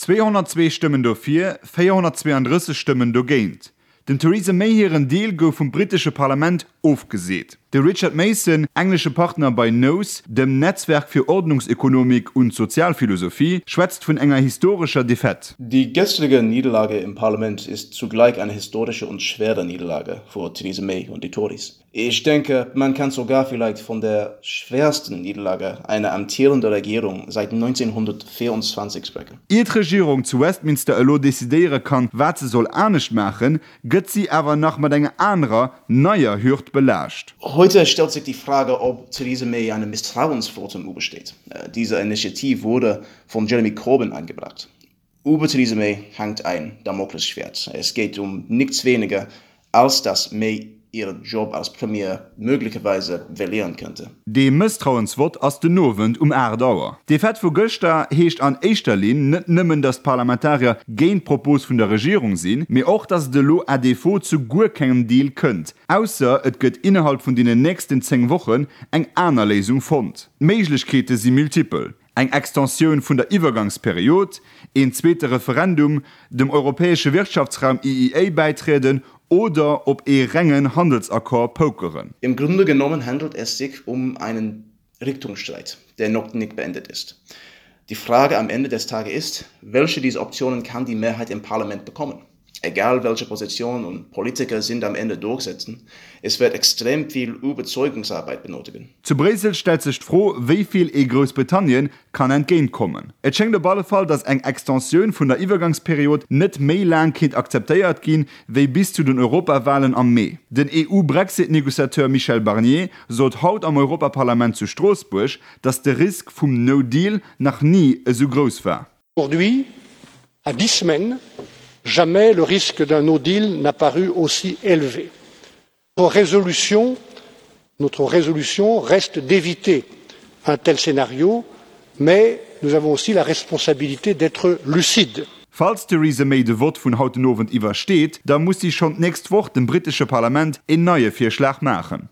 202 Stëmmen dofir, 432 Stëmmen dogéint. Dem Theresa May hiren Deal gouf vum brittesche Parlament ofgeseet. De Richard Mason, englesche Partner bei Nous, dem Netzwerk für Ordnungsökonomik und Sozialphilosophie, schwätzt vun enger historescher Defaite. Die gestrige Niederlage im Parlament ist zugleich eine historische und schwere Niederlage für Theresa May und die Tories. Ich denke, man kann sogar vielleicht von der schwersten Niederlage einer amtierenden Regierung seit 1924 sprechen. Ier d'Regierung zu Westminster elo decidéiere kann, wat se soll anescht maachen, gëtt si awer nach mat enger anerer, neier Hürd belaascht. Heute stellt sich die Frage, ob Theresa May einem Misstrauensvotum übersteht. Diese Initiative wurde von Jeremy Corbyn eingebracht. Über Theresa May hängt ein Damoklesschwert. Es geht um nichts weniger, als dass May ihren Job als Premier möglicherweise verlieren könnte. Dee Mësstrauensvott ass den Owend um 8 Auer. D'Defaite vu gëschter heescht an éischter Linn net nëmmen, datt d'Parlamentarier géint d'Propos vun der Regierung sinn, mee och, datt et elo à défaut zu guer kengem Deal kënnt, ausser et gëtt innerhalb vun deenen nächsten 10 Wochen eng aner Léisung fonnt. D'Méiglechkeete si multipel. Eng Extensioun vun der Iwwergangsperiod, een zweete Referendum, dem europäesche Wirtschaftsraum EEA bäitrieden oder op ee rengen Handelsaccord pokeren. Im Grunde genommen handelt es sich um einen Richtungsstreit, der noch nicht beendet ist. Die Frage am Ende des Tages ist, welche dieser Optionen kann die Mehrheit im Parlament bekommen? Egal welche Position und Politiker sind am Ende durchsetzen, es wird extrem viel Überzeugungsarbeit benötigen. Zu Bréissel stellt sech d'Fro, wéi vill ee Groussbritannien kann entgéint kommen. Et schéngt op alle Fall, datt eng Extensioun vun der Iwwergangsperiod net méi laang kéint akzeptéiert ginn, wéi bis zu den Europawalen am Mee. Den EU-Brexit-Negociateur Michel Barnier sot haut am Europaparlament zu Stroossbuerg, datt de Risk vum No Deal nach ni esou grouss war. Aujourd'hui, à 10 semaines, jamais le risque d'un no deal n'a paru aussi élevé. Notre résolution, notre résolution reste d'éviter un tel scénario, mais nous avons aussi la responsabilité d'être lucides. Falls d'Theresa May de Vott vun haut den Owend iwwersteet, da muss si schonn d'nächst Woch dem brittesche Parlament een neie Virschlag maachen.